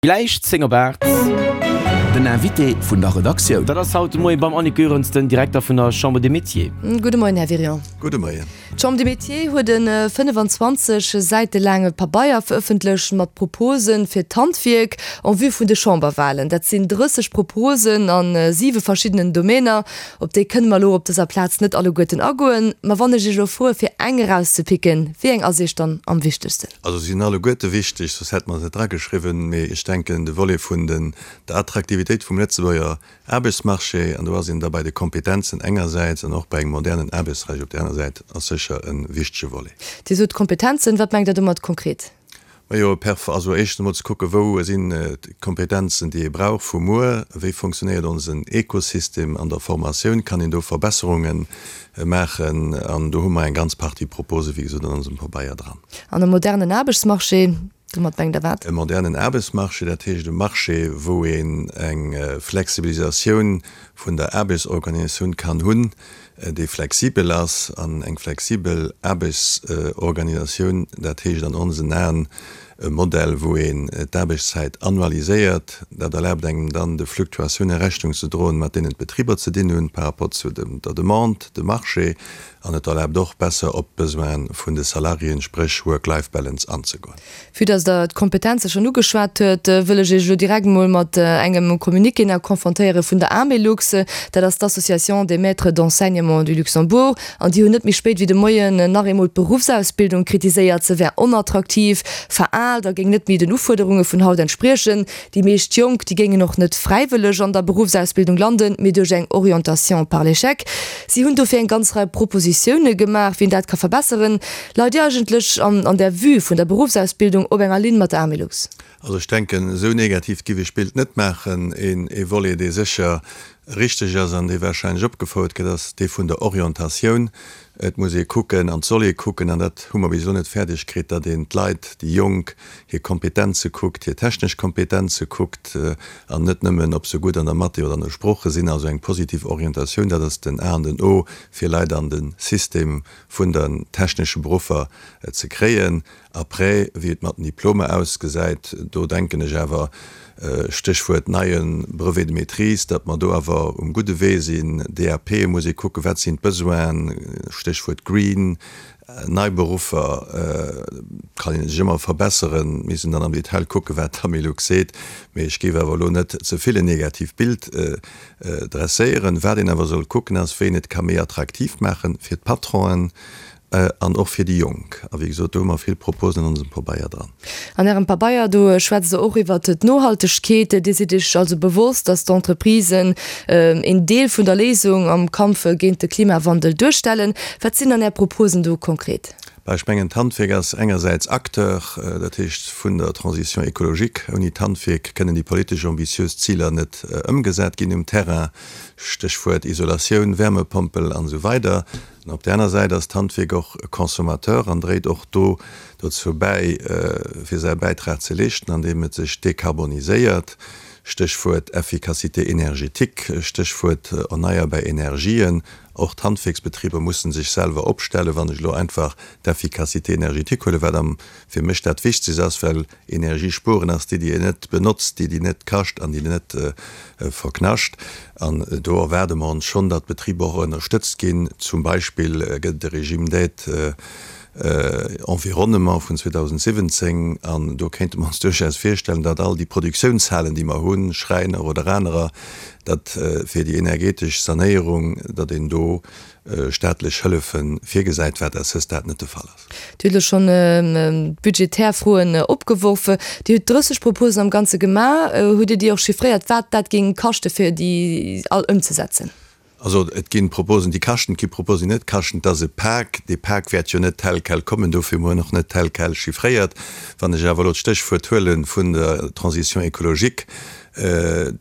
Gläich 10 op 8. Den Invité vun der Redaktioun. Dat ass haut de Moie beim Annick Goerens, den Direkter vun der Chambre des Métiers. Gudde Moien, Här Wirion. Gudde Moien. D'Chambre des Métiers huet e 25 Säite laange Pabeier verëffentlecht mat Propose fir d'Handwierk en vue vun de Chamberwahlen. Dat sinn 30 Proposen a siwe verschiddenen Domainer. Op déi kënne mer elo op dëser Plaz net alleguerten agoen. Ma wann ech Iech elo froe fir eng erauszepicken, wéi eng ass Iech dann am wichtegsten? Also se sinn alleguerte wichteg, soss hätte mer se net drageschriwwen. Mee ech denken, de Volet vun den, der Attraktivitéit vum Lëtzebuerger Aarbechtsmarché, an do ass een da bei de Kompetenzen engersäits an och bei engem modernen Aarbechtsrecht op där aner Säit, ass sécher e wichtege Volet. Dir sot Kompetenzen. Wat mengt Der domat konkret? Majo, perf. Also éischtens emol ze kucken, wou sinn d'Kompetenzen, déi ee brauch vu muer, wéi funktionéiert onsen Ekosystem an der Formatioun, kann een do Verbesserunge maachen? An do hu mer eng ganz Partie Propose, wéi gesot, an onsem Pabeier dran. An e modernen Aarbechtsmarché, domat mengt Der wat? E modernen Aarbechtsmarché, dat heescht e Marché, wou een eng Flexibilisatioun vun der Aarbechtsorganisatioun kann hunn, dee flexibel ass, an eng flexibel Aarbechtsorganisatioun, dat heescht an onsen Aen e Modell, wou een d'Aarbechtszäit annualiséiert. Dat erlaabt engem dann, de Fluctuatioune Rechnung ze droen, mat deenen d'Betriber ze dinn hunn par rapport zu der Demande, dem Marché, an et erlaabt och, besser op d'Besoine vun de Salariéen, spréch Work-Life-Balance, anzegoen. Vue dass Der d'Kompetenze schonn ugeschwat huet, wëll ech Iech elo direkt emol mat engem Communiqué nach confrontéiere vun der Amelux. Dat ass d'Association des maîtres d'enseignement du Luxembourg. An déi hunn net méi spéit wéi de Moien nach eemol d'Beruffsausbildung kritiséiert. Se wär onattraktiv, veraalt a géing net méi den Ufuerderunge vun haut entspriechen. Déi meescht Jonk, déi géingen och net fräiwëlleg an der Beruffsausbildung landen, mee duerch eng Orientation par l'échec. Si hunn dofir eng ganz Rei Propositioune gemaach, wéi een dat ka verbesseren. Leit Dir eigentlech an der Vue vun der Beruffsausbildung op enger Linn mat der Amelux? Also ech denken, esou negatiivt giff ech d'Bild net maachen. Een Volet, dee sécher richteg ass an dee wahrscheinlech opgefouert gëtt, ass dee vun der Orientatioun. Et muss ee kucken an et soll ee kucken, an dat hu mer bis elo net fäerdeg kritt, datt een d'Leit, déi Jonk, hir Kompetenze kuckt, hir technesch Kompetenze kuckt an net nëmmen, ob se gutt an der Mathé oder an de Sprooche sinn. Also eng positiv Orientatioun, dat ass den A an den O, fir Leit an de System vun den technesche Beruffer ze kréien. Après, wéi et mat den Diplomer ausgesäit, do denken ech awer, Stéchwuert neie Brevet de maîtrise, datt mer do awer um gudde Wee sinn. DAP muss ee kucken, wat sinn d'Besoinen, Stéchwuert Green, nei Beruffer kann ee sech ëmmer verbesseren. Mir müssen dann am Detail kucken, wat d'Amelux seet, mee ech géif awer elo net ze vill en negatiivt Bild Dresséieren. Wat een awer soll kucken ass, wéi een et ka méi attraktiv maache fir d'Patronen an och fir déi Jonk. A wéi gesot, do hu mer vill Proposen an onsem Pabeier dran. An Ärem Pabeier, do schwätzt Der och iwwert d'Nohaltegkeet. Dir sidd Iech also bewosst, datt d'Entreprisen een Deel vun der Léisung am Kampf géint de Klimawandel duerstellen. Wat sinn dann Är Proposen do konkret? Bah, ech mengen, d'Handwierk ass engersäits Acteur, dat heescht vun der Transition écologique. Ouni d'Handwierk kënnen déi politesch ambitiös Ziler net ëmgesat ginn um Terrain, Stéchwuert Isolatioun, Wärmepompel an esou weider. An op där aner Säit ass d'Handwierk och e Consommateur an dréit och do dozou bäi, fir säi Bäitrag ze leeschten, andeem et sech dekarboniséiert, Stéchwuert Efficacité énergétique, Stéchwuert erneierbar Energien. Och d'Handwierksbetriber mussen sech selwer opstellen. Wann ech elo einfach d'Efficacité énergétique huelen, wat am fir mech dat Wichtegst ass, well Energie spueren ass déi, déi een net benotzt, déi, déi net kascht an déi net verknascht. An do erwaarde mer ons schonn, datt d'Betriber och ënnerstëtzt ginn. Zum Beispill gëtt et e Régime d'aide environnement vun 2017 an do kéinte mer ons duerchaus virstellen, datt all déi Produktiounshalen, déi mer hunn, Schräiner oder anerer, datt fir déi energetesch Sanéierung, datt een do staatlech Hëllefe virgesäit, wat à ce stade net de Fall ass. Dir hutt elo schonn budgetär Froen opgeworf. Dir hutt 30 Proposen am Ganze gemaach. Hutt Dir déi och chiffréiert, wat dat géing kaschte fir déi all ëmzesetzen? Also et ginn Proposen, déi kaschten, et gi Proposen, déi net kaschten. Et ass e Pak. Dee Pak wäert jo net tel quel kommen, dofir hu mer en och net tel quel chiffréiert. Wann ech awer elo d'Stéchwuert huele vun der Transition écologique,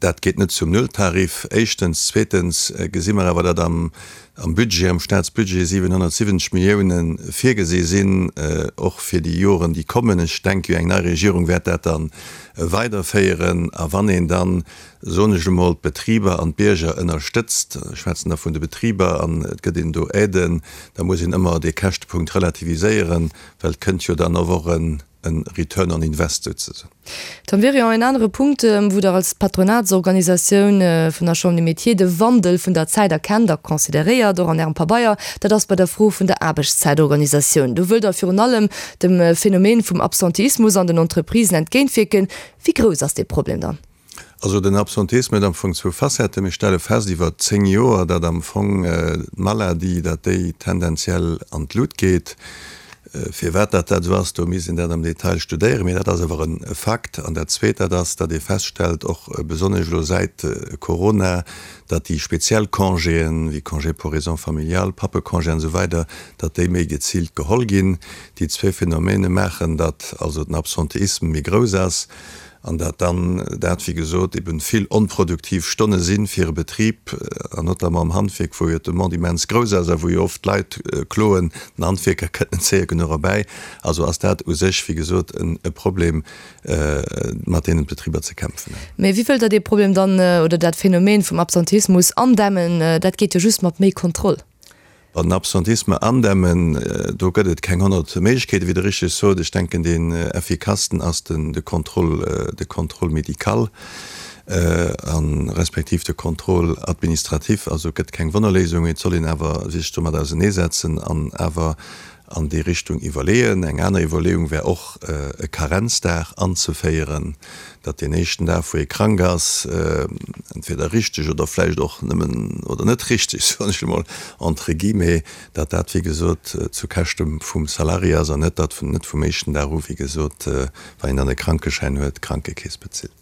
dat geet net zum Nulltarif, éischtens. Zweetens gesi mer awer, datt am Budget, am Staatsbudget 770 Milliounen virgesi sinn, och fir déi Joren, déi kommen. Ech denke jo, eng nei Regierung wäert dat da weiderféieren. A wann een dann soen ech emol, d'Betriber an d'Bierger ënnerstëtzt, ech schwätzen da vun de Betriber, an et gëtt een do Aiden, da muss een ëmmer dee Käschtepunkt relativiséieren, well et kënnt jo dann och en. E Return on Invest souzesoen. Tom Wirion, En anere Punkt, wou Der als Patronatsorganisatioun vun der Chambre des Métiers de Wandel vun der Zäit erkennt a consideréiert, och an Ärem Pabeier, dat ass bei der Fro vun der Aarbechtszäitorganisatioun. Do wëllt Der virun allem dem Phänomen vum Absenteismus an den Entreprisen entgéintwierken. Wéi grouss ass dee Problem dann? Also den Absenteisme huet am Fong zwou Facetten. Mir stelle fest iwwer 10 Joer, datt am Fong d'Maladie, datt déi tendenziell an d'Lut geet. Firwat datt dat esou ass, do misst een dat am Detail studéieren, mee dat ass awer e Fakt. An dat Zweet, dat ass, datt ee feststellt, och besonnesch elo säit Corona, datt déi speziell Congéen, wéi Congé pour raisons familiales, Pappecongé an esou weider, datt déi méi geziilt geholl ginn. Déi zwee Phänomene maachen, datt also den Absenteisme méi grouss ass. An dat dann dat, wéi gesot, eben vill onproduktiv Stonne si fir e Betrib, an notamment am Handwierk, wou jo d'Demande immens grouss ass a wou jo oft d'Leit kloen, den Handwierker kënnt net séier genuch erbäi. Also ass dat u sech, wéi gesot, e Problem, mat deenen d'Betriber ze kämpfen hunn. Mä wéi wëllt Der dee Problem dann, oder dat Phänomen vum Absenteismus andämmen? Dat geet jo just mat méi Kontroll. Den Absentisme andämmen, do gëtt et keng 100 Méiglechkeeten, wéi Der richteg sot. Ech denken, deen effikassten ass den de Contrôle, de Contrôle médical a respektiv de Contrôle administratif. Also et gëtt keng Wonnerléisung, mee et soll een awer sech domat auseneesetzen an awer an déi Richtung iwwerleeën. Eng aner Iwwerleeung wär och, e Karenzdag anzeféieren, datt deen éischten Dag, wou ee krank ass, entweder richteg oder vläicht och nëmmen, oder net richteg, soen ech emol entre guillemets, datt dat, wéi gesot, zu Käschte vum Salarié ass an net, datt net vum éischten Dag u, wéi gesot, wann een dann e Krankeschäin huet, d'Krankekeess bezilt.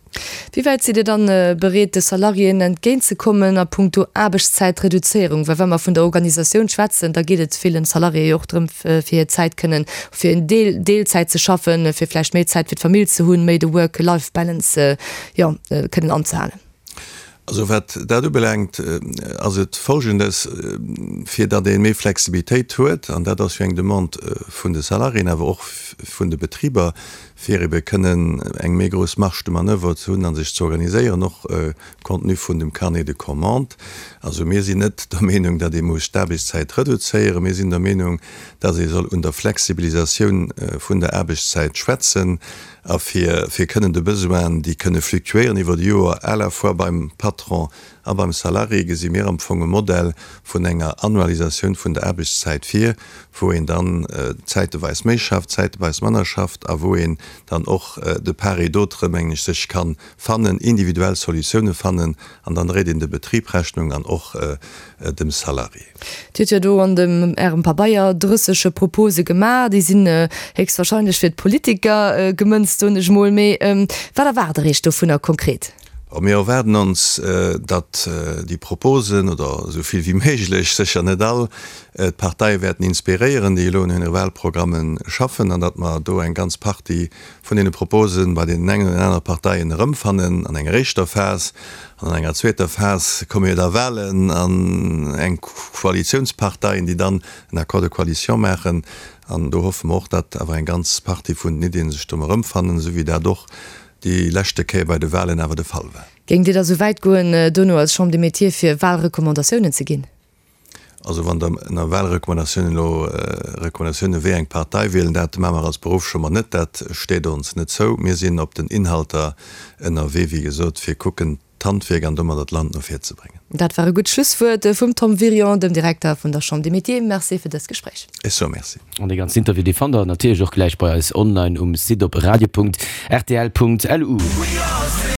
Wéi wäit sidd Dir dann bereet, de Salariéen entgéintzekommen a puncto Aarbechtszäitreduzéierung? Well wa mer vun der Organisatioun schwätzen, da geet et villen Salariéë jo och drëm, fir hir Zäit kënnen fir en Deel Deelzäit ze schaffen, fir vläicht méi Zäit fir d'Famill ze hunn, méi de Work-Life-Balance, jo, kënnen anzehalen. Also wat dat ubelaangt, ass et Folgendes, Fir datt ee méi Flexibilitéit huet, an dat ass jo eng Demande vun de Salariéen, awer och vun de Betriber, fir ebe kënnen eng méi grouss Marge de manoeuvre ze hunn a sech ze organiséieren, och compte tenu vun dem Carnet de commandes. Also mir sinn net der Meenung, datt ee muss d'Aarbechtszäit reduzéieren. Mir sinn der Meenung, datt ee soll un der Flexibilisatioun vun der Aarbechtszäit schwätzen a fir fir kënnen de Besoinen, déi kënne fluctuéieren iwwer de Joer, à la fois beim Patron a beim Salarié, gesi mir am Fong e Modell vun enger Annualisatioun vun der Aarbechtszäit vir, wou een dann zäiteweis méi schafft, zäiteweis manner schafft a wou een dann och de part et d'autre, mengen ech, sech ka fannen, individuell Solutioune fannen an dann dréit een de Betrib Rechnung an och dem Salarié. Dir hutt jo do an dem Ärem Pabeier 30 Propose gemaach. Déi sinn héchstwahrscheinlech fir d'Politiker gemënzt, soen ech mol. Mee wat erwaart Der Iech dovunner konkret? Bon, mir erwaarden ons, datt déi Proposen, oder esou vill wéi méiglech, sécher net all, d'Parteie wäerten inspiréieren, déi elo un hire Wahlprogramme schaffen, an datt mer do eng ganz Partie vun deene Propose bei deenen engen oder den anere Parteien erëmfannen an enger éischter Phas. An an enger zweeter Phas komme jo da Wahlen an eng Koalitiounsparteien, déi dann en Accord de coalition maachen. An do hoffe mer och, datt awer eng ganz Partie vun den Iddien sech do erëmfannen, esou wéi dat och déi leschte Kéier bei de Wahlen awer de Fall war. Géingt Dir da sou wäit goen, dono als Chambre des Métiers fir Wahlrecommandatiounen ze ginn? Also wann Der ënner Wahlrecommandatiounen elo Recommandatiounen wéi eng Partei wielen, dat maache mer als Beruffschamber net, dat steet ons net zou. Mir sinn op den Inhalter ënnerwee, wéi gesot, fir kucken d'Handwierk an domadder d'Land no vir ze bréngen. Dat war e gutt Schlusswuert vum Tom Wirion, dem Direkter vun der Chambre des Métiers. Merci fir dëst Gespréich. Ech soe Merci. An dee ganzen Interview, dee fannt der natierlech och gläich bei eis online um Site op radio.rtl.lu.